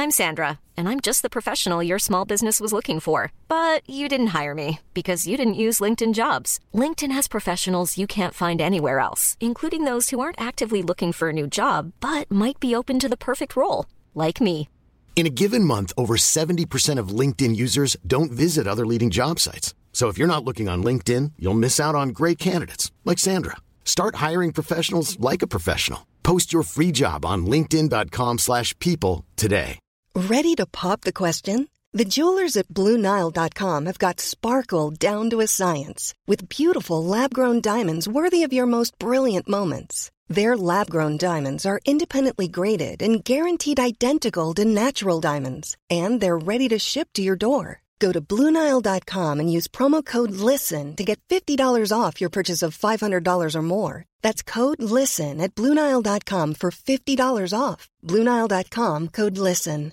I'm Sandra, and I'm just the professional your small business was looking for. But you didn't hire me because you didn't use LinkedIn jobs. LinkedIn has professionals you can't find anywhere else, including those who aren't actively looking for a new job but might be open to the perfect role, like me. In a given month, over 70% of LinkedIn users don't visit other leading job sites. So if you're not looking on LinkedIn, you'll miss out on great candidates like Sandra. Start hiring professionals like a professional. Post your free job on linkedin.com/people slash people today. Ready to pop the question? The jewelers at BlueNile.com have got sparkle down to a science with beautiful lab grown diamonds worthy of your most brilliant moments. Their lab grown diamonds are independently graded and guaranteed identical to natural diamonds, and they're ready to ship to your door. Go to BlueNile.com and use promo code LISTEN to get $50 off your purchase of $500 or more. That's code LISTEN at BlueNile.com for $50 off. BlueNile.com code LISTEN.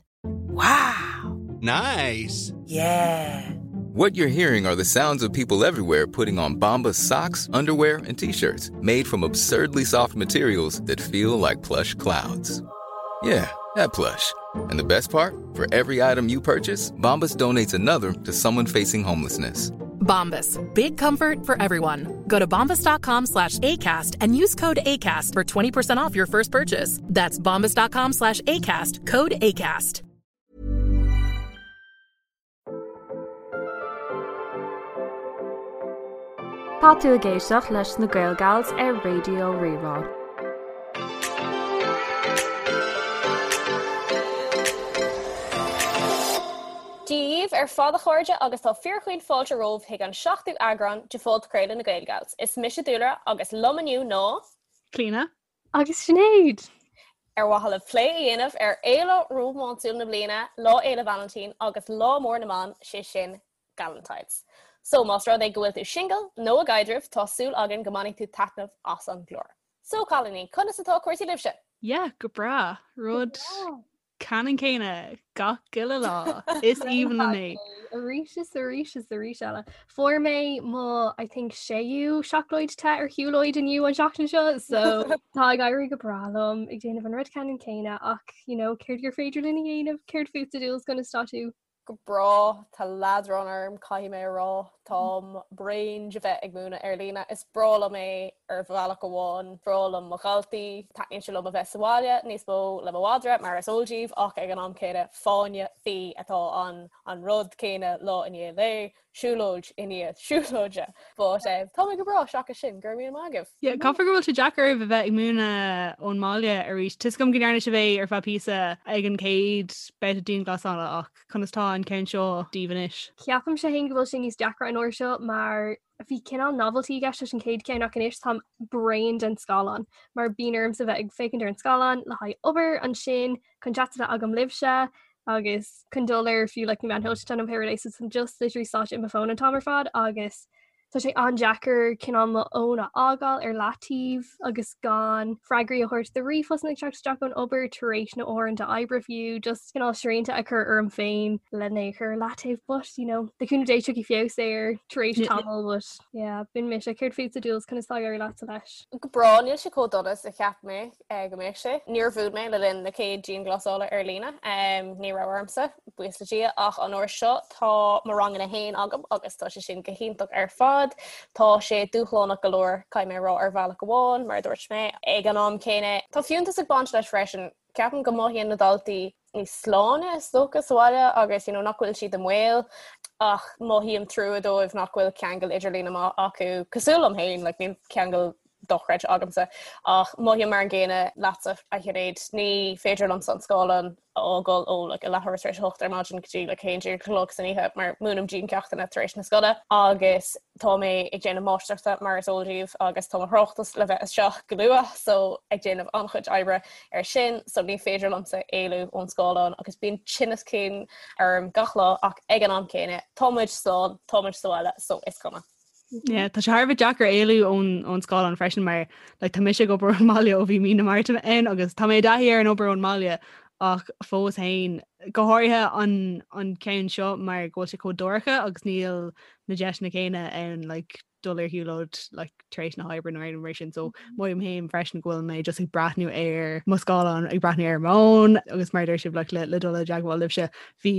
Nice. Yeah. What you're hearing are the sounds of people everywhere putting on Bombas socks, underwear, and t-shirts made from absurdly soft materials that feel like plush clouds. Yeah, that plush. And the best part? For every item you purchase, Bombas donates another to someone facing homelessness. Bombas. Big comfort for everyone. Go to bombas.com slash ACAST and use code ACAST for 20% off your first purchase. That's bombas.com slash ACAST. Code ACAST. Tá tú ag éisteacht leis na Gaelgals ar Raidió Rí-Rá. Dia dhaoibh ar fad a chairde agus tá fíorchaoin fáilte romhaibh chuig an seachtú eagrán de phodchraoladh na Gaelgals. Is mise Dúlra agus liom inniu ná. Clíona. Agus Sinéad! Ar mhaithe le plé a dhéanamh ar fhéile rómánsúil na bliana, Lá Fhéile Vailintín agus Lá Mór na mBan, sé sin Galentine's. So más rud é go bhfuil tú singil nó i gcaidreamh, tá súil againn go mbainfidh tú taitneamh as an gclár. So cailíní, conas atá cúrsaí libhse? Yeah, go breá. Rud ceannann céanna gach uile lá. Is aoibhinn liom é. Arís is arís is arís eile. Fuair mé mo I think séú seacláid te ar shiúlóid inniu an seachtain seo, so tá ag éirí go breá liom ag déanamh an rud ceannann céanna ach you know, céard gur féidir linn a dhéanamh, céard fútsa Dúls conas tá tú? Go breá, tá leadrán orm, caithfidh mé a rá. Táim bréan de bheith ag múineadh ar líne. Is breá liom é ar bhealach amháin, breá liom mo dhaltaí, taitníonn sé liom a bheith sa bhaile níos mó le mo mhadra, mar is eol daoibh, ach ag an am céanna, fáinne fí atá ann, an rud céanna lá i ndiaidh lae. siúlóid i ndiaidh siúlóide. But eh, tá mé go breá seachas sin, go raibh míle maith agaibh. Yeah, caithfidh go bhfuil sé deacair oraibh a bheith ag múineadh ón mbaile arís. Tá 'fhios agam go ndearna sibh é ar feadh píosa ag an chéad babhta dianghlasála ach conas tá an ceann seo daoibh anois? Ceapaimse féin go bhfuil sé níos deacra an uair seo mar bhí cineál novelty i gceist leis an chéad ceann ach anois táim bréan den scáileán mar bíonn ormsa bheith ag féachaint ar an scáileán le haghaidh obair ansin chun chat a bheith agam libhse agus chun dul ar fiú like na meáin shóisialta nó pé rud é so táim just literally sáite i mo fón an t-am ar fad agus tá sé an-deacair cineál mo fhón a fhágáil ar leataobh agus gan freagraí a thabhairt do ríomhphostanna ag teacht isteach ón obair tar éis na uaireanta oibre fiú just cineál srianta a chur orm féin lena é chur ar leataobh but you know le cúnamh Dé tiocfaidh feabhas air tar éis tamaill but yeah b'in mise céard fútsa Dúls conas tá ag éirí leatsa leis? Go breá níl sé chomh dona is a cheap mé. go mbeadh sé. Níor mhúin mé le linn na chéad dianghlasála ar líne, ní raibh ormsa, buíochas le Dia, ach an uair seo tá mo ranganna féin agam agus tá sé sin go hiontach ar fad. Tá sé dúshlánach go leor, caithfidh mé a rá, ar bhealach amháin, mar a dúirt mé. Ag an am céanna, tá fiúntas ag baint leis freisin. Ceapaim go mothaíonn na daltaí níos sláine is dócha sa bhaile agus you know, nach bhfuil siad i mbaol ach mothaím trua dóibh nach bhfuil ceangal idirlíne maith acu cosúil liom féin, like, níl ceangal dochreidte agamsa ach mothaím mar an gcéanna leatsa a Shinéad ní féidir liomsa an scáileán a fhágáil ó like, a leathuair tar éis a hocht ar maidin go dtí like, 11 a chlog san oíche mar múinim diancheachtanna tar éis na scoile agus tá mé ag déanamh máistreachta mar is eol daoibh agus tá mo thráchtas le bheith isteach go luath so ag déanamh an-chuid oibre ar sin so ní féidir liomsa éalú ón scáileán agus bíonn tinneas cinn orm gach lá ach ag an am céanna tá muid slán, tá muid sa bhaile so is cuma. Yeah, tá sé thar a bheith deacair éalú ón ón scáileán freisin mar like, tá mise ag obair ón mbaile ó bhí mí na Márta ann agus tá mé i dtaithí ar an obair ón mbaile ach fós féin go háirithe an an ceann seo mar go bhfuil sé chomh dorcha agus níl na deiseanna céanna ann like, dul ar shiúlóid like tar éis na hoibre nó aon mar sin so mothaím féin freisin go bhfuil mé just ag breathnú ar mo scáileán ag breathnú ar m'fhón agus mar a deir sibh like le le dul i dteagmháil libhse bhí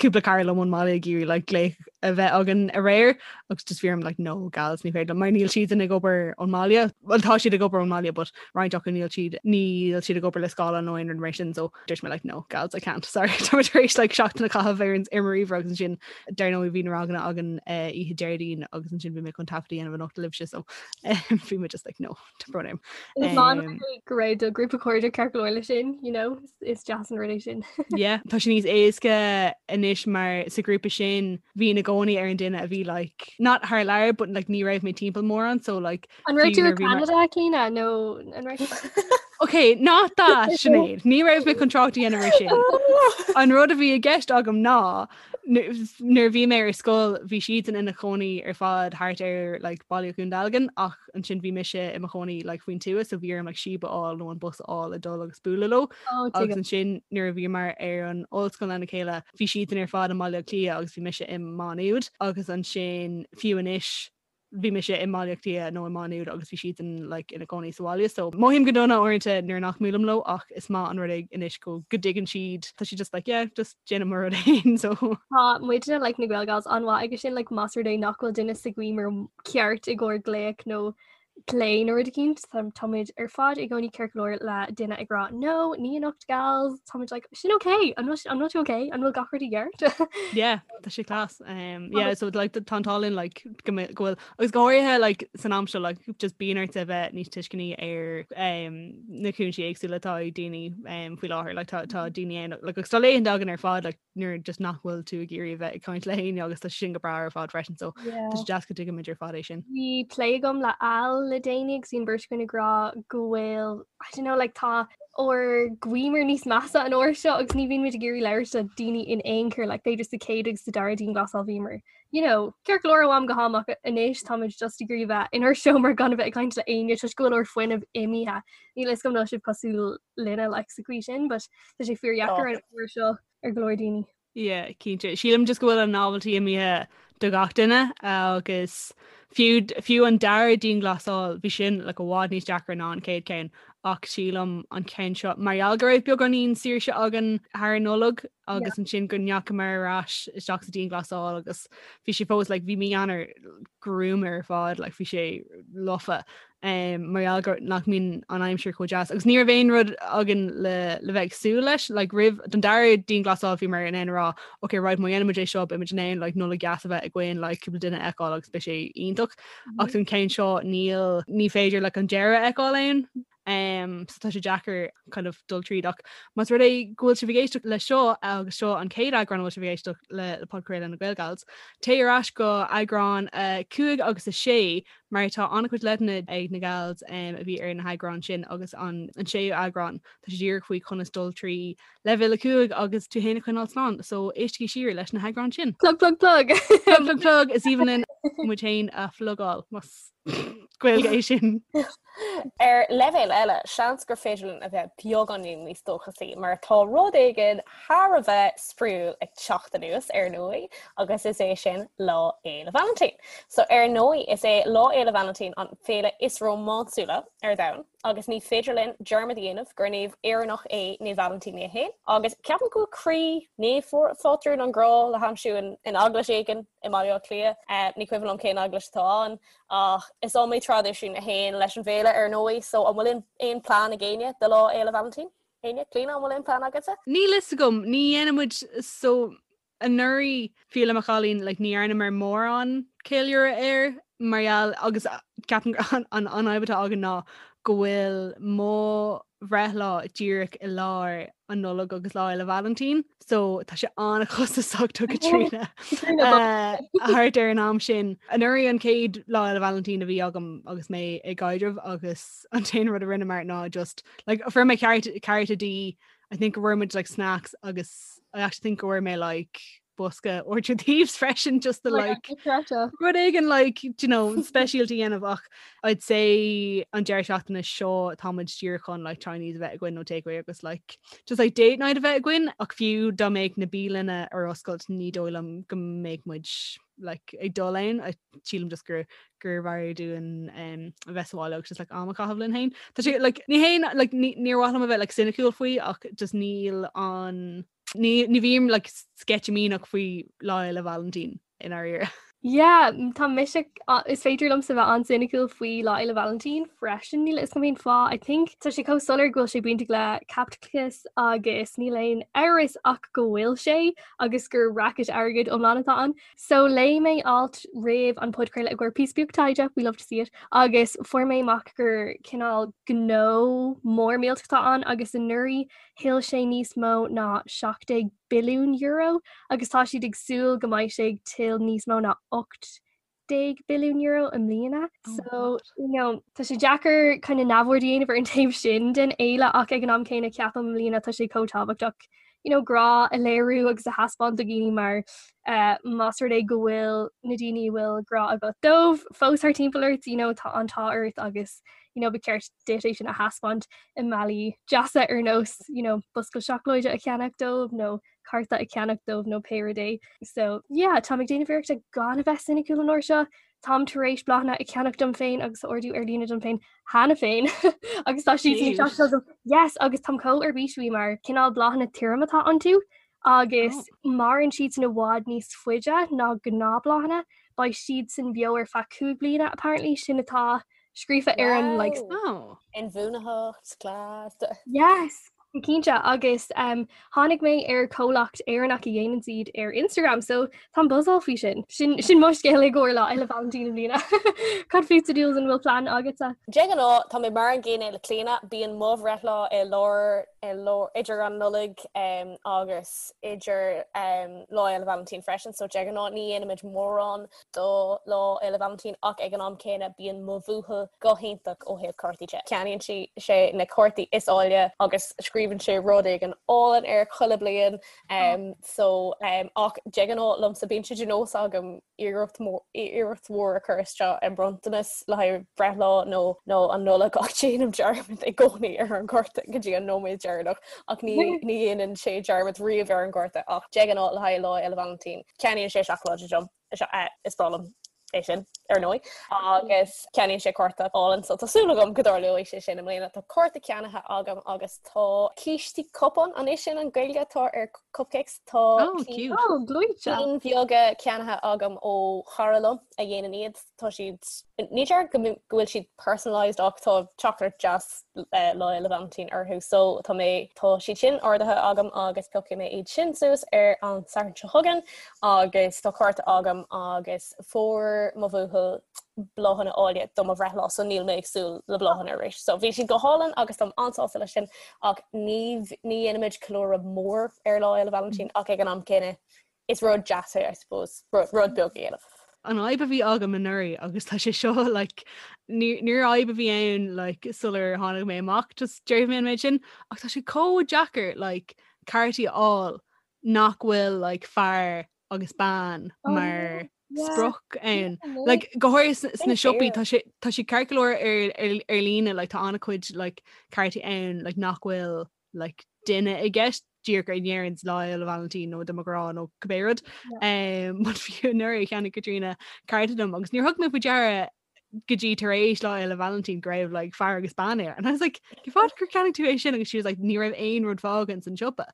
cúpla cara liom ón mbaile ag iarraidh like glaoch a bheith againn aréir agus just bhí orm like no gals ní féidir liom mar níl siadsan ag obair ón mbaile well tá siad ag obair ón mbaile but roinnt acu níl siad níl siad ag obair le scáileán nó aon rud mar sin so dúirt mé like no gals I can't sorry tá mé tar éis like seachtain a chaitheamh ar an ar mo ríomhaire agus ansin dar ndóigh bhí na ranganna againn eh, oíche Déardaoin agus ansin bhí mé chun taifead a dhéanamh anocht libhse so bhí mé just like no tá brón orm. Is maith an rud é go raibh do ghrúpa cairde ceart go leor leis sin, you know, is deas an rud é sin. Yeah, tá sé níos éasca anois mar sa ghrúpa sin bhínn i gcónaí ar an duine a bhí like not thar lear but like ní raibh mé timpeall mórán so like An raibh tú i Canada Clíona nó an raibh Ok, not that Sinéad, ní raibh mé chun trácht a dhéanamh ar sin. An rud a bhí i gceist agam ná nuair a bhí mé ar scoil bhí siadsan ina chónaí ar fad thart ar like, Baile Dhún Dealgan ach ansin bhí mise i mo chónaí like, faoin tuath so bhí orm like, síob a fháil nó an bus a fháil a dul agus bualadh leo. Oh, agus ansin nuair a bhíomar ar an ollscoil lena chéile bhí siadsan ar fad i mBaile Átha Cliath agus bhí mise i Má Nuad agus ansin fiú anois bhí mise i mBaile Átha Cliath nó i Má Nuad agus bhí siadsan like, ina gcónaí sa bhaile so mothaím go dona uaireanta nuair nach mbuailim leo ach is maith an rud é anois go go dtuigeann siad tá siad just like yeah just déanaim mo rud féin so Tá muidne like na Gaelgals an-mhaith aige sin like más rud é nach bhfuil duine sa gcuimhne ceart i gcomhair glaoch nó plé nó rud eicínt tá muid ar fad i gcónaí ceart go leor le duine ag rá no ní anocht gals tá muid like sin ok an bhfuil an bhfuil tú ok an bhfuil gach rud i gceart Yeah tá sé class um, yeah so like tá an t-ádh linn like go mbe- go bhfuil agus go háirithe like san am seo like just bíonn ort a bheith níos tuisceanaí ar um, na cúinsí éagsúla atá ag daoine um, faoi láthair like tá tá daoine ann like agus tá laethanta againn ar fad like nuair just nach bhfuil tú ag iarraidh a bheith ag caint le héinne agus tá sin go breá ar fad freisin so tá sé deas go dtuigimid ar fad é sin. Bhí plé agam le Al le déanaí agus bhí an bheirt againn ag rá go bhfuil I don't know like tá ár gcuimhne níos measa an uair seo agus ní bhíonn muid ag iarraidh labhairt le daoine in aon chor like b'fhéidir sa chéad agus sa dara dianghlasáil bhíomar you know ceart go leor ó am go ham ach anois táimid just ag iarraidh bheith inár seomra gan a bheith ag caint le éinne toisc go bhfuil ár fuinneamh imithe. Níl a fhios agam an bhfuil sibh cosúil linne like sa chaoi sin but tá sé fíordheacair an uair seo ar go leor daoine. Yeah, cinnte. Sílim just go bhfuil an novelty imithe do gach duine agus fiú fiú an dara dianghlasáil bhí sin like i bhfad níos deacra ná an chéad ceann ach sílim an ceann seo mar gheall go raibh beagáinín saoirse againn thar an Nollaig agus ansin go ndeachamar ar ais isteach sa dianghlasáil agus bhí sé fós like bhí mí Eanáir gruama ar fad like bhí sé lofa um, mar gheall gur nach mbíonn an aimsir chomh deas agus ní raibh aon rud againn le le bheith ag súil leis like roimh don dara dianghlasáil bhíomar in ann a rá ok right má dhéanaimid é seo beimid in ann like Nollaig dheas a bheith againn like cúpla duine a fheiceáil agus beidh sé iontach ach don ceann seo níl ní féidir like an deireadh a fheiceáil ann Um, so tá sé deacair kind of dul tríd ach más rud é go bhfuil sibh ag éisteacht le seo agus seo an chéad eagrán a bhfuil sibh ag éisteacht le le podchraoladh na Gaelgals, téigh ar ais go eagrán 5 agus 6 mar tá an-chuid leideanna ag na gals um, a bhí ar na heagráin sin agus an, an séú eagrán tá sé díreach faoi conas dul trí leibhéal 5 agus tú féin a choinneáil slán, so éistigí siar leis na heagráin sin. Plug plug plug! Plug plug plug is aoibhinn linn muid féin a phlugáil más Gaeilge é sin. Ar leibhéal eile, seans gur féidir linn a bheith beagáinín níos dóchasaí mar tá rud éigin thar a bheith spraíúil ag teacht anuas ar ndóigh agus is é sin Lá Fhéile Vailintín. So ar ndóigh is é Lá Fhéile Vailintín an féile is rómánsúla ar domhan agus ní féidir linn dearmad a dhéanamh gur naomh Éireannach é Naomh Vailintín é féin agus ceapaim go bhfuil croí naomh phátrún an ghrá le haimsiú in eaglais éigin i mBaile Átha Cliath. Ní cuimhin liom cén eaglais atá ann Ach is iomaí traidisiún a théann leis an bhféile ar ndóigh, so an bhfuil aon plean ag éinne do Lá Fhéile Vailintín? Éinne? Clíona, an bhfuil aon plean agatsa? Níl fhios agam, ní dhéanann muid so anuraidh fiú le mo chailín like ní dhearnamar mórán ceiliúradh air mar gheall agus ceapaim an an fhadhb atá againn ná go bhfuil mo bhreithlá díreach i lár an Nollaig agus Lá Fhéile Vailintín so tá sé an-chostasach do Caitríona thart ar an am sin. Anuraidh an chéad Lá Fhéile Vailintín a bhí agam agus mé i gcaidreamh agus an t-aon rud a rinneamar ná just like fuair mé cárta di I think go bhfuair muid like snacks agus I actually think go bhfuair mé like bosca 100 Thieves freisin just to like rud éigin like you know speisialta a dhéanamh ach I'd say an deireadh seachtaine seo táimid díreach chun like Chinese a bheith againn nó takeaway agus like just like date night a bheith againn ach fiú dá mbeadh na bialanna ar oscailt ní dóigh liom go mbeadh muid like ag dul ann sílim just gur gurbh fhearr dúinn um, a bheith sa bhaile agus just like am a chaitheamh linn féin. Tá sé like ní haon like níor mhaith liom a bheith like cynical faoi ach just níl an ní ní bhím like sceitimíneach faoi Lá Fhéile Vailintín i ndáiríre. Yeah, tá mise is féidir liomsa bheith an-cynical faoi Lá Fhéile Vailintín freisin níl a fhios agam cén fáth. I think tá sé chomh soiléir go bhfuil sé bainteach le caipitleachas agus níl aon amhras ach go bhfuil sé agus gur racket airgid iomlán atá ann. So léigh mé alt roimh an podchraoladh i gcomhair píosa beag taighde, we love to see it, agus fuair mé amach gur cineál gnó mór millteach atá ann agus anuraidh thuill sé níos mó ná €17 billiún agus tá siad ag súil go mbeidh sé ag tuilleadh níos mó ná €18 billiún i mbliana. Oh so you know, tá sé deacair kind of neamhaird a dhéanamh ar an taobh sin den fhéile ach ag an am céanna ceapaim i mbliana tá sé chomh tábhachtach you know, grá a léiriú agus a thaispeáint do dhaoine mar uh, más rud é go bhfuil na daoine a bhfuil grá agat dóibh fós thar timpeall ort, you know, tá an t-ádh ort agus you know, ba cheart duit é sin a thaispeáint i mbealaí deasa ar nós you know, bosca seacláide a cheannach dóibh nó cárta a cheannach dóibh nó pé rud é. So yeah, táim ag déanamh iarrachta gan a bheith soiniciúil an uair seo. Táim tar éis bláthanna a cheannach dom féin agus a ordú ar líne dom féin cheana féin agus tá siad ag teacht agam. Yes, agus táim chomh ar bís faoi mar cineál bláthanna tirim atá iontu agus oh. maireann siad san i bhfad níos faide ná gnáthbhláthanna, beidh siad san beo ar feadh 5 bliana apparently sin atá scríofa ar an like oh. Inbhuanaitheacht class. Yes, go cinnte agus um, tháinig mé ar comhlacht Éireannach a dhéanann iad ar Instagram so táim buzzáil faoi sin. Sin, sin mo scéal i gcomhair Lá Fhéile Vailintín i mbliana. Cad fútsa Jules an bhfuil plean agatsa? De ghnáth tá mé mar an gcéanna le Clíona, bíonn mo bhreithlá i lár i lár idir an Nollaig um, agus idir um, Lá Fhéile Vailintín freisin, so de ghnáth ní dhéanaimid mórán do Lá Fhéile Vailintín ach ag an am céanna bíonn mo bhuachaill go hiontach ó thaobh cártaí de. Ceannaíonn sé na cártaí is áille agus scríobhann sé rud éigin álainn air chuile bliain so ach de ghnáth liomsa bíonn sé de nós agam iarracht iarracht mhór a chur isteach i mbronntanas le haghaidh breithlá nó nó an Nollaig ach déanaim dearmad i gcónaí ar an gcárta go dtí an nóiméad deireanach ach ní ní dhéanann sé dearmad riamh ar an gcárta ach de ghnáth le haghaidh Lá Fhéile Vailintín ceannaíonn sé seacláid dom. Is breá liom é sin, ar ndóigh. Agus ceannaíonn sé cárta álainn, so tá súil agam go dtarlóidh sé sin i mbliana. Tá cárta ceannaithe agam agus tá cístí cupán, an é sin an Gaeilge atá ar cupcakes? Tá oh, oh, cinn bheaga ceannaithe agam ó chara liom a dhéanann iad. Tá siad, ní déarfainn go bhfuil siad personalised ach tá teachtaireacht deas Lá Fhéile Vailintín orthu so tá mé tá siad sin ordaithe agam agus piocfaidh mé iad sin suas ar an Satharn seo chugainn agus tá cárta agam agus fuair mo bhuachaill bláthanna áille do mo bhreithlá so níl mé ag súil le bláthanna arís. So bhí siad go hálainn agus táim an-sásta leis sin ach ní ní dhéanaimid ceiliúradh mór ar Lá Fhéile Vailintín ach ag an am céanna is rud deas é I suppose, rud beag a dhéanamh. An fhadhb a bhí agam anuraidh agus tá sé seo like níor fhadhb a bhí ann like sular tháinig mé amach just déarfaidh mé an méid sin ach tá sé chomh deacair like cártaí a fháil nach bhfuil like fear agus bean oh, mar sprioc ann. Like go háirithe sna siopaí tá sé tá sé ceart go leor ar ar ar líne like tá an-chuid like cártaí ann like nach bhfuil like duine i gceist díreach a ndeireann Lá Fhéile Vailintín nó do mo ghrá nó cibé rud. Um, but fiú anuraidh cheannaigh Caitríona cárta dom agus níor thug mé faoi deara go dtí tar éis Lá Fhéile Vailintín go raibh like, fear agus bean air. And I was like, cén fáth gur cheannaigh tú é sin agus she was like, ní raibh aon rud fágtha san siopa.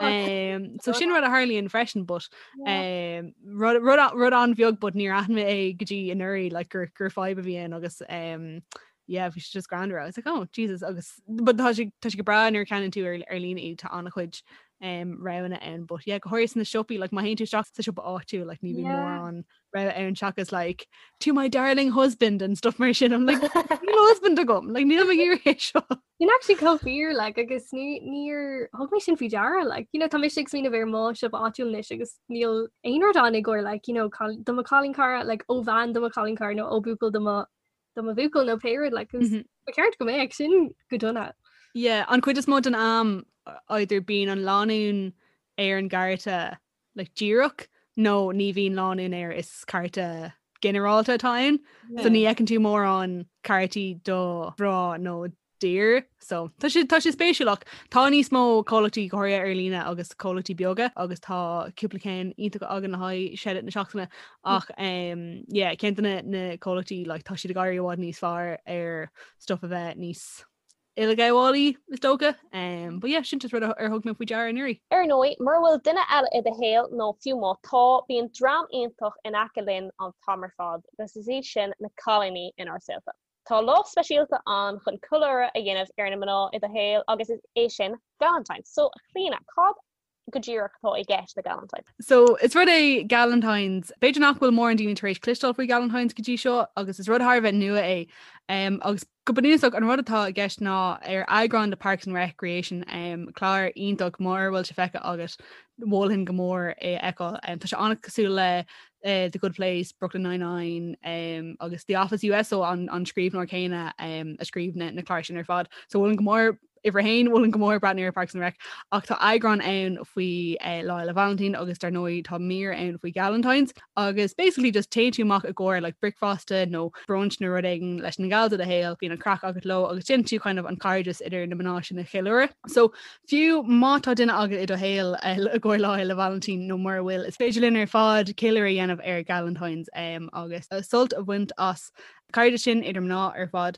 Um, so sin rud a tharlaíonn freisin, but um, rud, rud, rud an-bheag but níor aithin mé é go dtí anuraidh like, gur, gur fadhb a bhí ann agus um, yeah bhí sé just greannmhar I was like oh Jesus agus but tá sé tá sé go breá nuair a cheannaíonn tú ar ar líne iad tá an-chuid um, roghanna ann but yeah go háirithe sna siopaí like má théann tú isteach sa siopa áitiúil like ní bhíonn Yeah. mórán rogha ann seachas like to my darling husband and stuff mar sin I'm like níl husband agam like níl mé ag iarraidh é seo Sin actually chomh fíor like agus ní níor thug mé sin faoi deara like you know tá mise ag smaoineamh ar mo siopa áitiúil anois agus níl aon rud ann i gcomhair like you know cal- do mo chailín cara like ó bhean do mo chailín cara nó ó buachaill do mo do mo bhuachaill nó pé rud like ba cheart go mbeadh sin go dona. Yeah, an chuid is mó den am either bíonn an lánúin ar an gcárta like díreach. nó ní bhíonn lánúin air is cárta ginearálta atá ann. So ní fheiceann tú mórán cártaí do mhná nó d'fhir. So tá sé tá sé spéisiúil ach tá níos mó comhlachtaí go háirithe ar líne agus comhlachtaí beaga agus tá cúpla ceann iontach againn le haghaidh shout-out na seachtaine ach um, yeah, ceann de na, na comhlachtaí like, tá siad ag éirí i bhfad níos fearr ar stuff a bheith níos uileghabhálaí is dócha. Um, but yeah, sin just rud ar thug mé faoi deara anuraidh. Ar ndóigh, mura bhfuil duine eile i do shaol nó fiú má tá, bíonn dream iontach in aice linn an t-am ar fad agus is iad sin na cailíní inár saolta. Tá lá speisialta ann chun ceiliúradh a dhéanamh ar na mná i do shaol agus is é sin Galentine's. So, a Chlíona, cad go díreach atá i gceist le Galentine's? So, is rud é Galentine's, b'fhéidir nach bhfuil mórán daoine tar éis cloisteáil faoi Galentine's go dtí seo agus is rud thar a bheith nua é. Um, agus go bunúsach an rud atá i gceist ná ar eagrán de Parks and Recreation, um, clár iontach mura bhfuil sé feicthe agat, mholfainn go mór é a fheiceáil. Um, tá sé an-cosúil le uh, The Good Place, Brooklyn Nine-Nine um, agus The Office US so an, an scríbhneoir céanna um, a scríobh na, na cláir sin ar fad. So mholfainn go mór uimhir a haon mholfainn go mór breathnú ar Parks and Rec ach tá eagrán ann faoi uh, Lá Fhéile Vailintín agus dar ndóigh tá mír ann faoi Galentine's agus basically just téann tú amach i gcomhair like bricfeasta nó brunch nó rud éigin leis na gals i do shaol, bíonn an craic agat leo agus déanann tú kind of an cairdeas idir na mná sin a cheiliúradh. So Fiú má tá duine agat i do shaol i gcomhair Lá Fhéile Vailintín nó mura bhfuil, is féidir linn ar fad ceiliúradh a dhéanamh ar Galentine's agus sult a bhaint as cairdeas sin idir mná ar fad.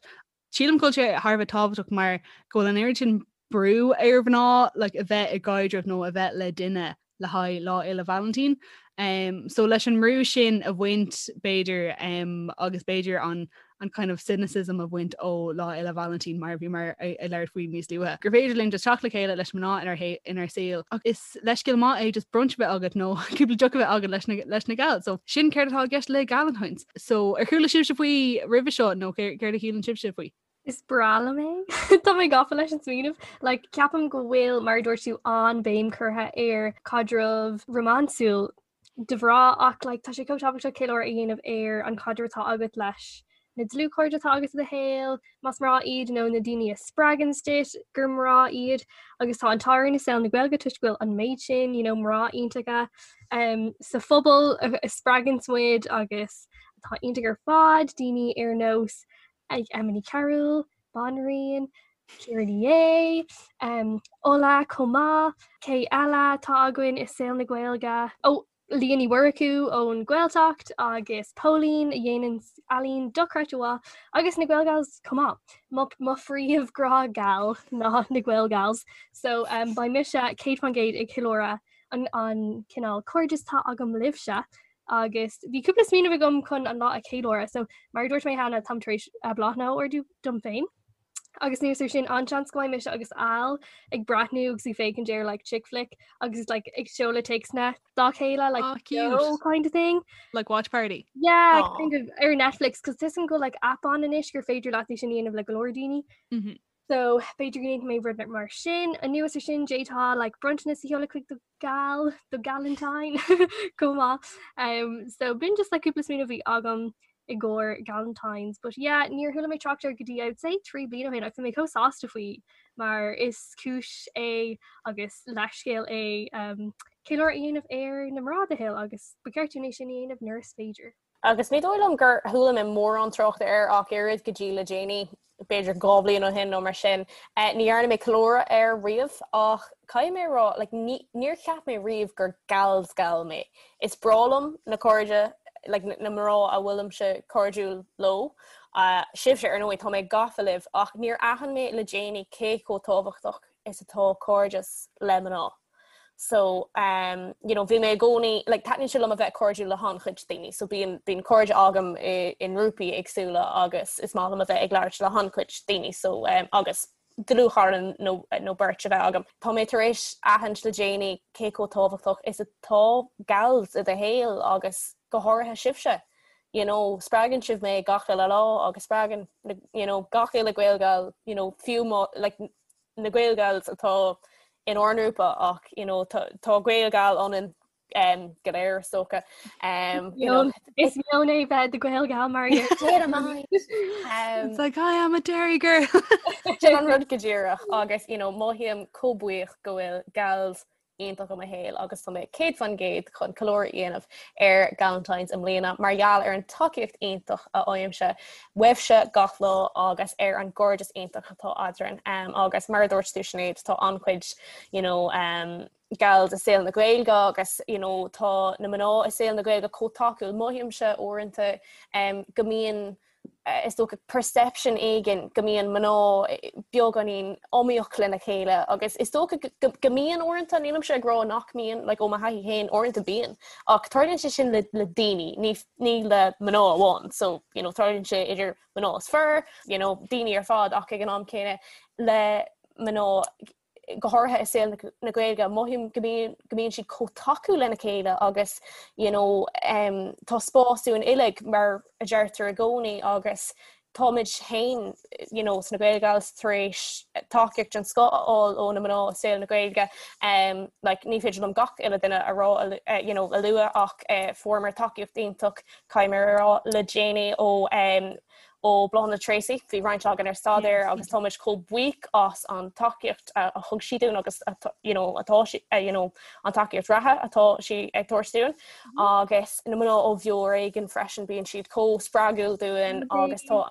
Sílim go bhfuil sé thar a bheith tábhachtach mar go bhfuil an oiread sin brú ar mhná like, a bheith i gcaidreamh nó a bheith le duine le haghaidh Lá Fhéile Vailintín. Um, so leis an mbrú sin a bhaint b'fhéidir um, agus b'fhéidir an an kind of cynicism a bhaint ó Lá Fhéile Vailintín mar bhí muid ag labhairt faoi níos luaithe. Gur féidir linn just teacht le chéile leis mná inár, inár saol. Ach is leithscéal maith é just brunch a bheith agat nó cúpla deoch a bheith agat leis na, leis na gals. So sin céard atá i gceist le Galentine's. So ar chuala sibhse faoi roimhe seo nó céard a shíleann sibhse faoi? Is breá liom é. Tá mé gafa leis an smaoineamh. Like, ceapaim go bhfuil, mar a dúirt tú, an-bhéim curtha ar caidreamh rómánsúil do mhná ach like, tá sé chomh tábhachtach ceiliúradh a dhéanamh ar an chaidreamh atá agat leis na dlúthchairde atá agat i do shaol, más mná iad nó na daoine a spreagann duit gur mná iad agus tá an t-ádh orainn i saol na Gaeilge toisc go bhfuil an méid sin you know, mná iontacha um, sa phobal a, a spreagann muid agus atá iontach ar fad, daoine ar nós ag Emma Ní Chearúil, Banríon, Ciara Ní É, um, Ola chomh maith, cé eile atá againn i saol na Gaeilge? Ó, Leah Ní Mhurchú ón Ghaeltacht agus Póilín a dhéanann ealaín dochreidte mhaith agus na Gaelgals chomh maith. Mo, mo phríomh-ghrá gal ná na Gaelgals. So um, beidh mise 100% ag ceiliúradh an, an cineál cairdeas atá agam libhse agus bhí cúpla smaoineamh agam chun an lá a cheiliúradh, so mar a dúirt mé cheana táim tar éis bláthanna a ordú dom féin. Agus anuas air sin an-seans go mbeidh mise agus Al ag breathnú agus ag féachaint ar like chick flick agus like ag seoladh téacsanna dá chéile like oh, cute. kind of thing. Like watch party. Yeah, Aww. kind of ar Netflix cos tá a fhios agam go bhfuil like app ann anois gur féidir leat é sin a dhéanamh le go leor daoine. Mm -hmm. So b'fhéidir go ndéanfaidh mé rud mar sin anuas air sin d'fhéadfá like bronntanas a sheoladh chuig do gal do Galentine chomh maith. Um, so b'in just like cúpla smaoineamh a bhí agam i gcomhair Galentine's, but yeah, níor chuala mé trácht air go dtí I would say 3 bliana ó shin agus bhí mé chomh sásta faoi mar is cúis é agus leithscéal é um, ceiliúradh a dhéanamh ar na mná i do shaol agus ba cheart dúinn é sin a dhéanamh nuair is féidir. Agus ní dóigh liom gur chuala mé mórán trácht air ach oiread go dtí le déanaí, b'fhéidir 2 bhliain ó shin nó mar sin. Ní dhearna mé ceiliúradh air riamh ach caithfidh mé a rá, like, ní, níor cheap mé riamh gur gals gal mé. Is breá liom na cairde, like, na mná a bhfuilimse cairdiúil leo. Sibhse, ar ndóigh, tá mé gafa libh ach níor aithin mé le déanaí cé chomh tábhachtach is atá cairdeas le mná. So um, you know, bhí mé i gcónaí, like, taitníonn sé liom a bheith cairdiúil le han-chuid daoine, so bíonn bíonn cairde agam i, i ngrúpaí éagsúla agus is maith liom a bheith ag labhairt le han-chuid daoine, so um, agus dlúthchara nó, nó beirt a bheith agam. Tá mé tar éis aithint le déanaí cé chomh tábhachtach is atá gals i do shaol agus go háirithe sibhse. You know, spreagann sibh mé gach uile lá agus spreagann you know, gach uile Gaelgal, you know, fiú má, like, na Gaelgals atá in ár ngrúpa ach you know, tá, tá Gaelgal ionainn um, go léir is dócha. Um, you know, Is meon é bheith i do Ghaelgal mar um, It's like I am a Derry girl. Sin an rud go díreach agus you know, mothaím chomh buíoch go bhfuil gals. iontach i mo shaol agus tá mé 100% chun ceiliúradh a dhéanamh ar Galentine's i mbliana mar gheall ar an tacaíocht iontach a fhaighimse uaibhse gach lá agus ar an gcairdeas iontach atá eadrainn. Um, agus mar a dúirt tú Sinéad, tá an-chuid you know, um, gals i saol na Gaeilge agus you know, tá na mná i saol na Gaeilge chomh tacúil. Mothaímse uaireanta um, go mbíonn is dócha perception éigin go mbíonn mná beagáinín iomaíoch lena chéile agus is dócha go mbíonn uaireanta, nílimse ag rá nach mbíonn, like ó mo thaithí féin uaireanta bíonn, ach tarlaíonn sé sin le le daoine, ní ní le mná amháin, so you know tarlaíonn sé idir mná is fir, you know daoine ar fad ach ag an am céanna le mná go háirithe i saol na Gaeilge, mothaím go mbíonn go mbíonn siad chomh tacúil lena chéile agus you know um, tá spás dúinn uilig mar a deirtear i gcónaí agus táimid féin you know, sna Gaelgals tar éis tacaíocht den scoth a fháil ó na mná i saol na Gaeilge. Um, like, ní féidir liom gach uile duine a rá uh, you know, a lua ach uh, fuaireamar tacaíocht iontach caithfidh mé a rá le déanaí ó um, ó Bláthnaid Treacy, bhí roinnt againn ar staidéar agus táimid chomh buíoch as an tacaíocht a thug sí dúinn agus you know, atá sí, you know, an tacaíocht reatha atá sí ag tabhairt dúinn agus na mná ó Bheo Ar Éigean freisin bíonn siad chomh spreagúil dúinn agus tá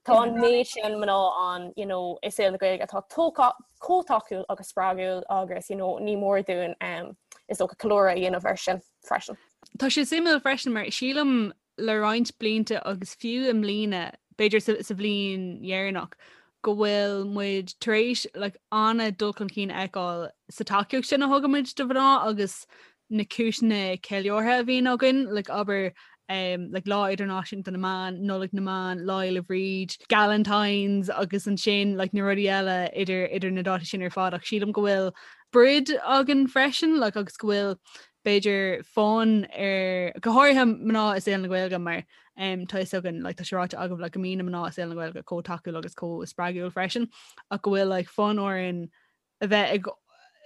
tá an méid sin mná ann you know, i saol na Gaeilge atá chomh tacúil agus spreagúil agus you know, ní mór dúinn um, is dócha ceiliúradh a dhéanamh air sin freisin. Tá sé suimiúil freisin mar sílim le roinnt blianta agus fiú i mbliana, b'fhéidir sa bhliain dheireanach, go bhfuil muid tar éis like, an-dul chun cinn a fheiceáil sa tacaíocht sin a thugaimid do mhná agus na cúiseanna ceiliúrtha a bhíonn againn, like, abair um, like, Lá Idirnáisiúnta na mBan, Nollaig na mBan, Lá Fhéile Bríd, Galentine's agus ansin like, na rudaí eile idir, idir na dátaí sin ar fad ach sílim go bhfuil brid againn freisin like, agus go bhfuil b'fhéidir fonn ar, go háirithe mná i saol na Gaeilge mar um, tá fhios againn, like, tá sé ráite agaibh like, go mbíonn na mná i saol na Gaeilge chomh tacúil agus chomh spreagúil freisin ach go bhfuil like, fonn orainn a bheith ag,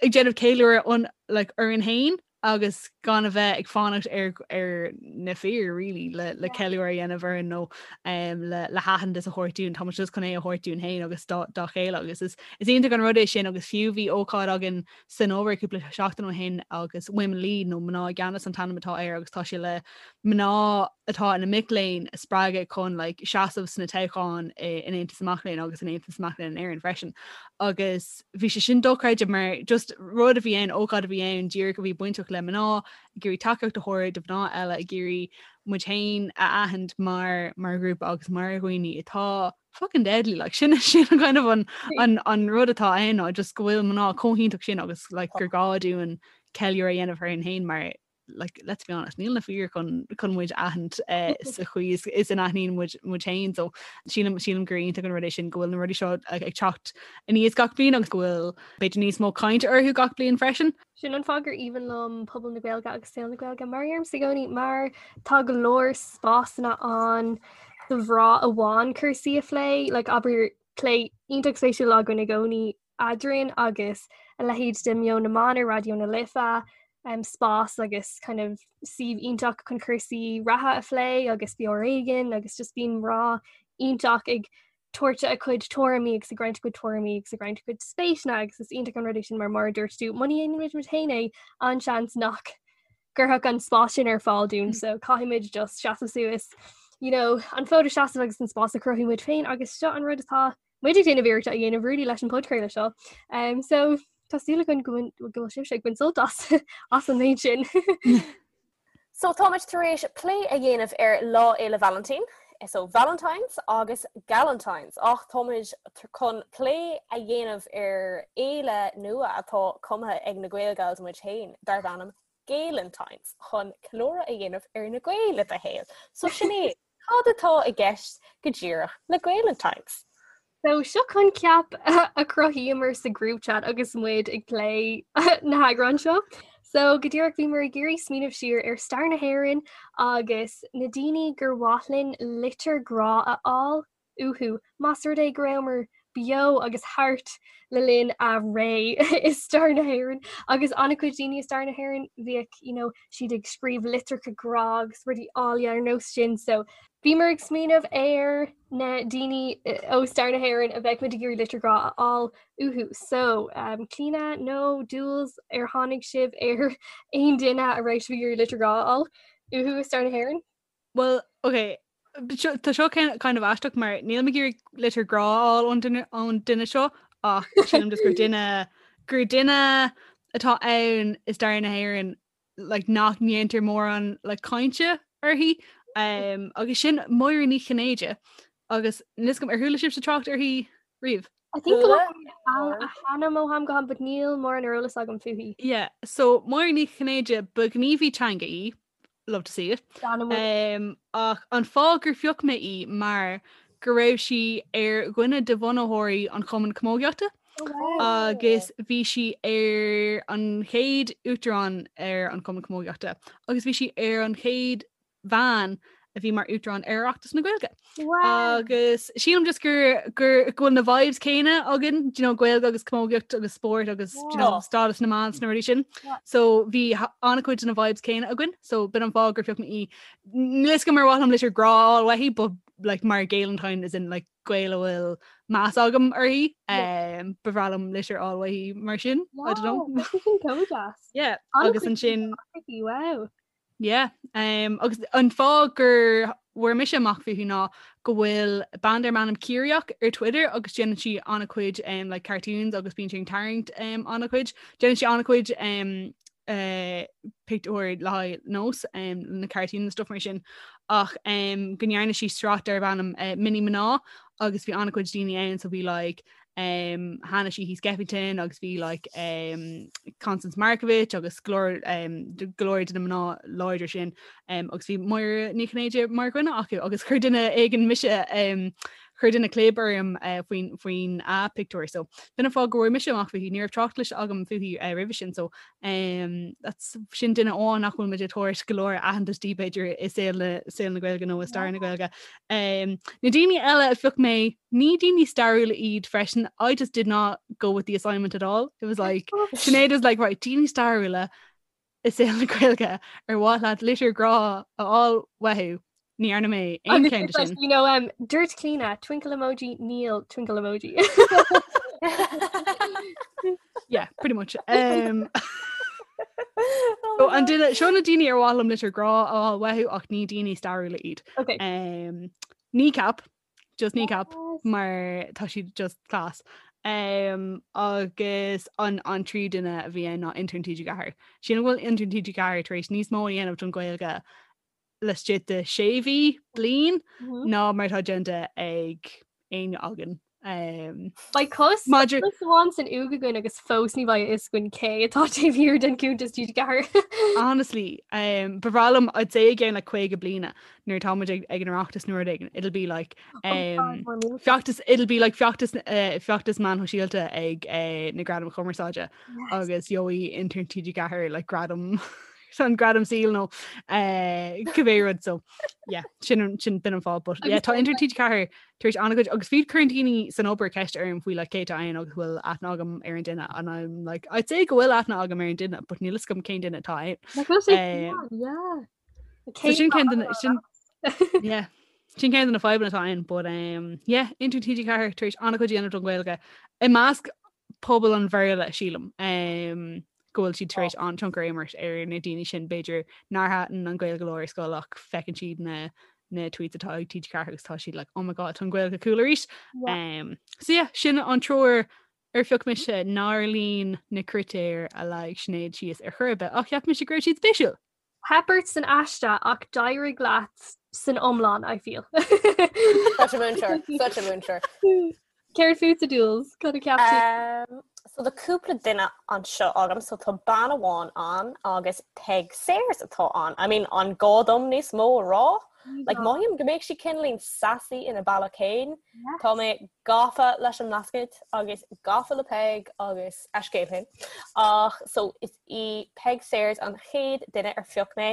ag déanamh ceiliúradh on, like, orainn féin agus gan a bheith ag fanacht ar, ar na fir really, le, le ceiliúradh a dhéanamh orainn nó um, le, le haitheantas a thabhairt dúinn, Tá muid just chun é a thabhairt dúinn féin agus dá, dá chéile agus is, is iontach an rud é sin agus fiú bhí ócáid againn san obair cúpla seachtain ó shin agus Women Lead nó Mná i gCeannas an t-ainm atá air agus tá sé le mná atá ina mic léinn a spreagadh chun like, seasamh sna toghcháin in Aontas na Mac Léinn agus in Aontas na Mac Léinn in Éirinn freisin. Agus bhí sé sin dochreidte mar just rud a bhí ann, ócáid a bhí ann díreach a bhí bainteach le mná, ag iarraidh tacaíocht a thabhairt do mhná eile, ag iarraidh muid féin a aithint mar mar ghrúpa agus mar dhaoine atá fucking deadly like sin sin an kind of an an an rud atá ann ná just go bhfuil mná chomh hiontach sin agus like gur gá dúinn ceiliúradh a dhéanamh orainn féin mar like let's be honest níl na fir chun chun muid aithint eh, sa chaoi is, is a n-aithníonn muid muid féin so sílim sílim gur iontach an rud é sin go bhfuil na rudaí seo ag, ag teacht aníos gach bliain agus go bhfuil b'fhéidir níos mó caint orthu gach bliain freisin. Sin an fáth gur aoibhinn liom pobal na Gaeilge agus saol na Gaeilge mar a deirimse i gcónaí mar tá go leor spásanna ann do mhná amháin cúrsaí a phlé, like abair plé iontach spéisiúil againn i gcónaí eadrainn agus a leithéid de Meon na mBan ar Raidió na Life, um, spás agus kind of suíomh iontach chun cúrsaí reatha a phlé agus Beo Ar Éigean agus just bíonn mná iontach ag tabhairt a cuid tuairimí agus ag roinnt a cuid tuairimí agus ag roinnt a cuid spéiseanna agus is iontach an rud é sin mar mar a dúirt tú muna ndéanann muid muid féin é an-seans nach gcuirfeadh an spás sin ar fáil dúinn so caithfimid just seasamh suas you know, an fód a sheasamh agus an spás a chruthú muid féin agus seo an rud atá muid ag déanamh iarracht a dhéanamh really leis an podchraoladh seo. Um, so tá súil againn go bhfuil sibhse ag baint sult as as an méid sin. So táimid tar éis plé a dhéanamh ar Lá Fhéile Vailintín, so Valentine's agus Galentine's, ach táimid chun plé a dhéanamh ar fhéile nua atá cumtha ag na Gaelgals muid féin, darb ainm Gaelentine's, chun ceiliúradh a dhéanamh ar na Gaeil i do shaol. So Sinéad, cad atá i gceist go díreach le Gaelentine's? So seo coincheap a chruthaíomar sa group chat agus muid ag plé na heagráin seo. So go díreach bhíomar ag iarraidh smaoineamh siar ar stair na hÉireann agus na daoine gur mhaith linn litir grá a fháil uathu más rud é go rabhamar beo agus thart le linn a ré i stair na hÉireann agus an-chuid daoine i stair na hÉireann bhíodh you know, siad ag scríobh litreacha grá agus rudaí áille ar nós sin so bhíomar ag smaoineamh ar na daoine ó stair na hÉireann a bheadh muid ag iarraidh litir grá a fháil uathu. So um, Clíona nó Jules ar tháinig sibh ar aon duine a raibh sibh ag iarraidh litir grá a fháil uathu i stair na hÉireann? Well, ok, tá seo kind of aisteach mar níl mé ag iarraidh litir grá a fháil ón duine ón duine seo ach sílim just gur duine gur duine atá ann i stair na hÉireann like, nach ndéantar mórán like, cainte uirthi um, agus sin Máire Ní Chinnéide agus níl 'fhios agam ar chuala sibhse trácht uirthi riamh. I think go bhfuil a hainm ó am go ham, but níl mórán ar eolas agam fúithi. Yeah, so Máire Ní Chinnéide ba ghníomhaí teanga í, love to see it. Um, ach an fáth gur phioc mé í mar go raibh sí ar dhuine de bhunaitheoirí an Chumann Camógaíochta oh, wow. agus bhí sí ar an chéad uachtarán ar an Chumann Camógaíochta agus bhí sí ar an chéad bhean a bhí mar uachtarán ar Oireachtas na Gaeilge. Wow. Agus sílim just gur gur go bhfuil na vibes céanna againn, do you know, Gaeilge agus camógaíocht agus spórt agus do you know, Yeah. stádas na mban sna rudaí sin. Yeah. So bhí ha- an-chuid de na vibes céanna againn, so b'in an fáth gur phioc mé í. Níl 'fhios agam ar mhaith liom litir grá a fháil uaithi, but like mar Gaelentine as in like Gael a bhfuil meas agam uirthi, Yeah. um, ba bhreá liom litir a fháil uaithi mar sin. I don't know. Wow, tá sin chomh deas. Yeah, An-chuid agus ansin uirthi, wow. Yeah, um, agus an fáth gur bhfuair mise amach fúithi ná go bhfuil bean darb ainm Ciarraíoch ar Twitter agus déanann sí an-chuid um, like cartoons agus bíonn sí ag tarraingt um, an-chuid. Déanann sí an-chuid um, uh, pictiúir le haghaidh nós um, na cartoons and stuff mar sin ach um, go ndearna sí sraith darb ainm uh, Mini Mná agus bhí an-chuid daoine ann so bhí like um, Hanna Sheehy Skeffington agus bhí like, um, Constance Markievicz agus go leor um, go leor de na mná láidre sin um, agus bhí Máire Ní Chinnéide mar dhuine acu agus chuir duine éigin mise um, chuir duine clib orm uh, faoin faoin a pictiúr so b'in an fáth go bhfuair mise amach fúithi ní raibh trácht cloiste agam fúithi uh, roimhe sin so um, that's sin duine amháin nach bhfuil muid ag tabhairt go leor aitheantas di b'fhéidir i saol na saol na Gaeilge nó i stair na Gaeilge. Um, na daoine eile a phioc mé ní daoine stairiúla iad freisin I just did not go with the assignment at all. It was like Sinéad was like right daoine stairiúla i saol na Gaeilge ar mhaith leat litir grá a fháil uathu ní dhearna mé aon Agus cheann it's like, sin. you know, um, dúirt Clíona, twinkle emoji, níl twinkle emoji. Yeah, pretty much. Um, so an duine seo na daoine ar mhaith liom litir grá a fháil uathu ach ní daoine stairiúla iad. Okay. Um, Kneecap just Kneecap Yes. mar tá siad just class. Um, agus an an tríú duine a bhí ann ná intern TG4. Sílim go bhfuil intern TG4 tar éis níos mó a dhéanamh don Ghaeilge laistigh de sé mhí bliain Mhm. ná mar atá déanta ag éinne againn. Um, Beidh cos Maidir- cos amháin san uaigh againn agus fós ní bheidh a fhios againn cé atá taobh thiar den cuntas TG4. Honestly, um, ba bhreá liom I'd say again like 50 bliana nuair atá muid ag ag an Oireachtas nó rud éigin. It'll be like um, feachtas it'll be like feachtas uh, feachtas meáin shóisialta ag uh, na Gradaim Chumarsáide agus gheobhaidh intern TG4 like gradam an gradam saoil nó uh, cibé rud so yeah sin sin b'in an fáth but yeah tá intern TG4 tar éis an-chuid agus fiú cuireann daoine san obair ceist orm faoi like cé atá ann agus bhfuil aithne agam ar an duine and I'm like I'd say go bhfuil aithne agam ar an duine but níl a fhios agam cén duine atá ann. Yeah. So sin ceann de na- sin yeah sin ceann de na fadhbanna atá ann but um, yeah intern TG4 tar éis an-chuid a dhéanamh don Ghaeilge i measc pobal an Bhéarla sílim um, go bhfuil siad tar éis an-tionchar a imirt ar na daoine sin b'fhéidir nár thaitin an Ghaeilge leo ar scoil ach feiceann siad na na tweets atá ag TG4 agus tá siad like oh my god tá an Ghaeilge cool arís. Um, so yeah, sin an triúr ar phioc mise nár líon na critéir a leag Sinéad síos ar chor ar bith ach cheap mise go raibh siad spéisiúil. Theip ort san aiste ach d'éirigh leat san iomlán, I feel. Such a múinteoir, such a múinteoir. Céard fútsa Jules? Cad a cheap tú? Um, so tá cúpla duine anseo agam, so tá bean amháin ann agus Peig Sayers atá ann. I mean, an gá dom níos mó a rá? Like mothaím go mbeadh sí cineáilín sassy ina bealach féin. Tá mé gafa leis an mBlascaod agus gafa le Peig agus a scéal féin. Ach so is í Peig Sayers an chéad duine ar phioc mé.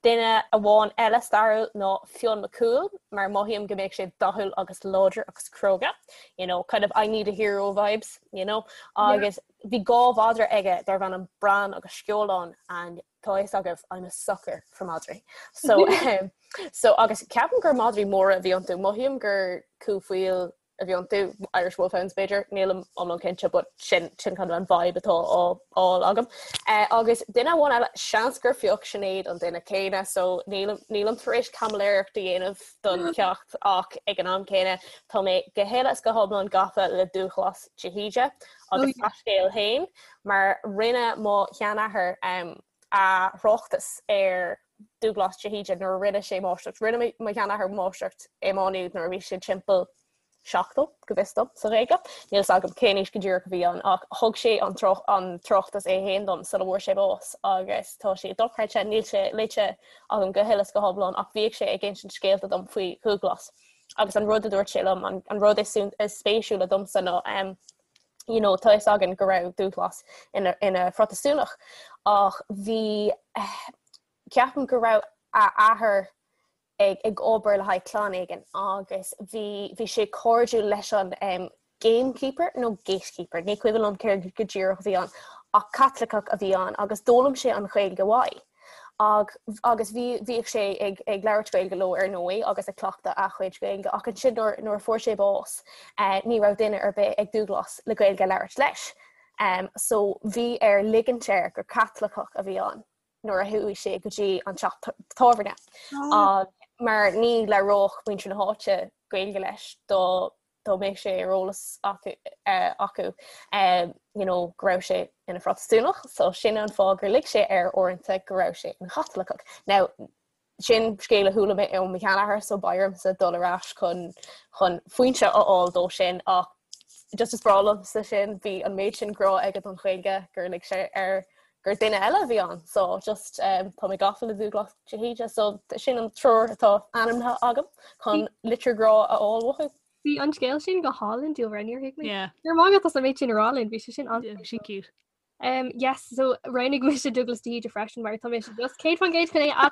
Duine amháin eile stairiúil ná Fionn Mac Cumhaill mar mothaím go mbeadh sé dathúil agus láidir agus cróga. You know, kind of I need a hero vibes, you know. Agus bhí dhá mhadra aige darbh ainm Bran agus Sceolán and tá a fhios agaibh I'm a sucker for madraí. So um, so agus ceapaim gur madraí móra a bhí iontu, mothaím gur cú faoil a bhí iontu, Irish Wolfhounds b'fhéidir, nílim iomlán cinnte but sin sin kind of an vibe atá á fháil agam. Uh, agus duine amháin eile seans gur phioc Sinéad an duine céanna so nílim nílim tar éis caimiléireacht a dhéanamh don cheacht ach ag an am céanna tá mé go huile is go hiomlán gafa le Dúghlas de hÍde agus a scéal féin mar rinne mo sheanathair a thráchtas ar Dúghlas de hÍde nuair a rinne sé máistreacht. Rinne mo sheanathair máistreacht i Má Nuad nuair a bhí sé timpeall 70, go bhfios dom, sa Ghaeilge. Níl 'fhios agam cén aois go díreach a bhí ann ach thug sé an tráchtas é féin dom sula bhfuair sé bás agus tá sé dochreidte, níl sé léite agam go huile is go hiomlán ach bhíodh sé ag insint scéalta dom faoi Dhúghlas agus an rud a dúirt sé liom, an rud is spéisiúla domsa ná you know, tá fhios againn go raibh Dúghlas ina, ina Phrotastúnach ach bhí, ceapaim go raibh a athair ag, ag obair le haghaidh clann éigin agus bhí, bhí sé cairdiúil leis an um, gamekeeper nó gatekeeper, ní cuimhin liom céard go díreach a bhí ann, ach Caitliceach a bhí ann agus d'fhoghlaim sé an Ghaeilge uaidh. Ag, agus bhí, bhíodh sé ag, ag labhairt Gaeilge leo ar ndóigh agus ag cleachtadh a chuid Gaeilge ach ansin nuair, nuair a fuair sé bás eh, ní raibh duine ar bith ag Dúghlas le Gaeilge a labhairt leis. Um, so bhí air ligint air gur Caitliceach a bhí ann nuair a chuaigh sé go dtí an teach tábhairne. Ah. Mar ní labhródh muintir na háite Gaeilge leis dá dá mbeadh sé ar eolas acu acu you know go raibh sé ina Phrotastúnach so sin an fáth gur lig sé air uaireanta go raibh sé ina Chaitliceach. Now sin scéal a chuala mé ó mo sheanathair so beidh ormsa dul ar ais chun chun foinse a fháil dó sin ach just is breá liomsa sin bhí an méid sin grá aige don Ghaeilge gur lig sé air gur duine eile a bhí ann so just um, tá mé gafa le Dúghlas de hÍde so sin an triúr atá ainmnithe agam chun litir grá a fháil uathu. Bhí an scéal sin go hálainn dúlra níor thuig mé. Yeah. Ar maith as an méid sin a rá linn bhí sé sin an sin cute. Um, yes, so roghnaigh mise Dúghlas de hÍde freisin mar tá mé just 100% chun é a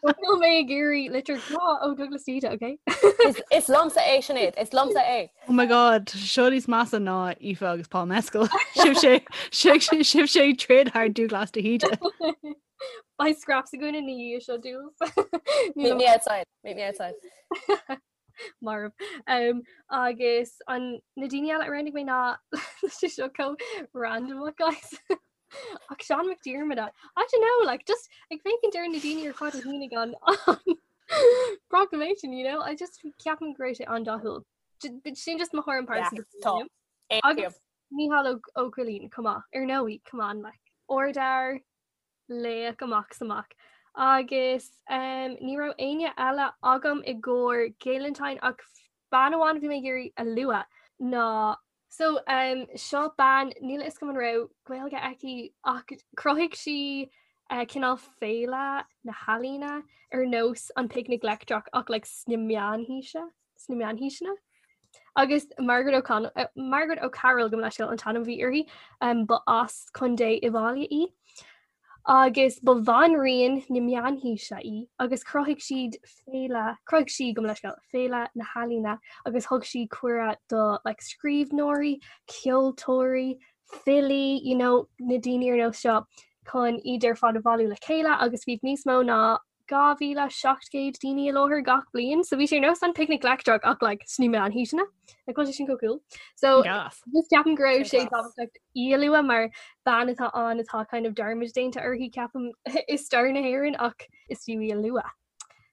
Níl mé ag iarraidh litir grá ó Dúghlas de hÍde, okay? Is, is liomsa é Sinéad, is liomsa é. Oh my god, seo níos measa ná Aoife agus Paul Mescal. Sibh sé sibh sé troid thar Dúghlas de hÍde. Beidh scraps againn ina dhiaidh seo Dúghlas. Meet me outside, meet me outside. Marbh. Um, agus an na daoine eile a roghnaigh mé ná sé seo chomh random guys. Ach Seán Mac Diarmada. I don't know, like just ag féachaint ar na daoine ar fad a shínigh an proclamation, you know? I just ceapaim go raibh sé an-dathúil. Sin just mo thuairim pearsanta. Tá. Agus Mícheál Ó Cóilín, come on, ar ndóigh, come on, like. Ardfhear, laoch amach is amach. Agus um, ní raibh éinne eile agam i gcomhair Gaelentine ach bean amháin a bhí mé ag iarraidh a lua ná So um, seo bean níl a fhios agam an raibh Gaeilge aici ach chruthaigh sí uh, cineál féile na healaíona ar nós an Picnic Leictreach ach like, sna meánhaoise sna meánhaoiseanna. Agus Margaret O'Connell uh, Margaret O'Carroll gabh mo leithscéal an t-ainm a bhí uirthi um, ba as Contae Uíbh Fhailí í. Agus ba bhanríon na meánhaoise í agus chruthaigh siad féile, chruthaigh sí, gabh mo leithscéal, féile na healaíona agus thug sí cuireadh do like scríbhneoirí, ceoltóirí, filí, you know, na daoine ar nós seo chun iad ar fad a bhailiú le chéile agus bhí níos mó ná 2,700 daoine i láthair gach bliain, so bhí sé ar nós an Picnic Leictreach ach like sna meánhaoiseanna. Like bhfuil sé sin chomh cool. So Gas. just ceapaim go raibh sé Sin class. tábhachtach í a lua mar bean atá ann atá kind of dearmad déanta uirthi ceapaim i stair na hÉireann ach is fiú í a lua.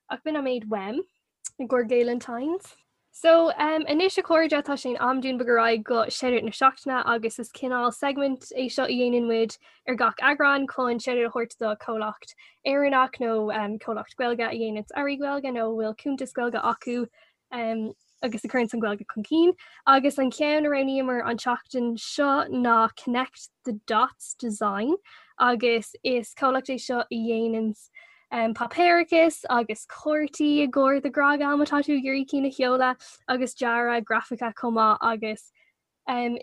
Ach b'in an méid uaim i gcomhair Gaelentines. So um, anois a chairde tá sé in am dúinn bogadh ar aghaidh go shoutout na seachtaine agus is cineál segment é seo a dhéanann muid ar gach eagrán chun shoutout a thabhairt do comhlacht Éireannach nó um, comhlacht Gaeilge a dhéanann earraí Gaeilge nó a bhfuil cuntas Gaeilge acu um, agus a chuireann an Ghaeilge chun cinn. Agus an ceann a roghnaíomar an tseachtain seo ná Connect the Dots Design agus is comhlacht é seo a dhéanann. Páipéarachas agus cártaí i gcomhair do ghrá geal má tá tú ag iarraidh cinn a sheoladh agus dearadh grafaice chomh maith agus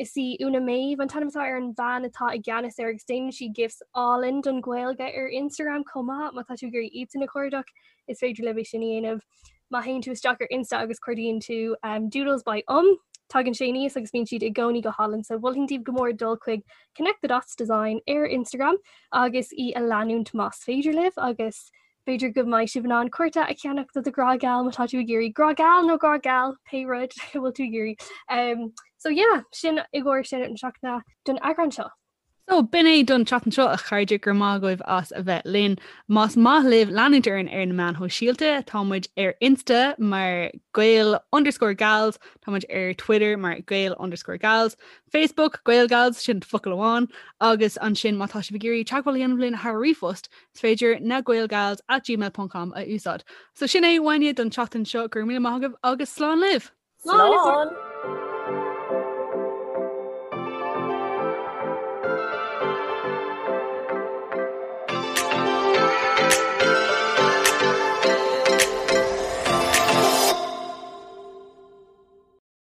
is í Úna Méabh an t-ainm atá ar an bhean atá i gceannas air agus déanann sí gifs álainn don Ghaeilge ar Instagram chomh maith má tá tú ag iarraidh iadsan a chuardach is féidir libh é sin a dhéanamh. Má théann tú isteach ar Insta agus cuardaíonn tú Doodles by Um tagann sé aníos agus bíonn siad i gcónaí go hálainn so mholfainn daoibh go mór dul chuig Connect the Dots Design ar Instagram agus í a leanúint más féidir libh agus b'fhéidir go mbeidh sibh in ann cárta a cheannach do do ghrá geal má tá tú ag iarraidh grá geal nó grá geal pé rud a bhfuil tú ag iarraidh. Um, so yeah, sin i gcomhair sin an seachtaine don eagrán seo. So, b'in é don tseachtain seo a chairde, go raibh maith agaibh as a bheith linn. Más maith libh leanúint orainn ar na meáin shóisialta, tá muid ar Insta mar Gael underscore Gals, tá muid ar Twitter mar Gael underscore Gals, Facebook, GaelGals, sin focal amháin, agus ansin má tá sibh ag iarraidh teagmháil a dhéanamh linn thar ríomhphost, is féidir na gaelgals at gmail ponc com a úsáid. So sin é uainne don tseachtain seo, go raibh míle maith agaibh agus slán libh! Slán!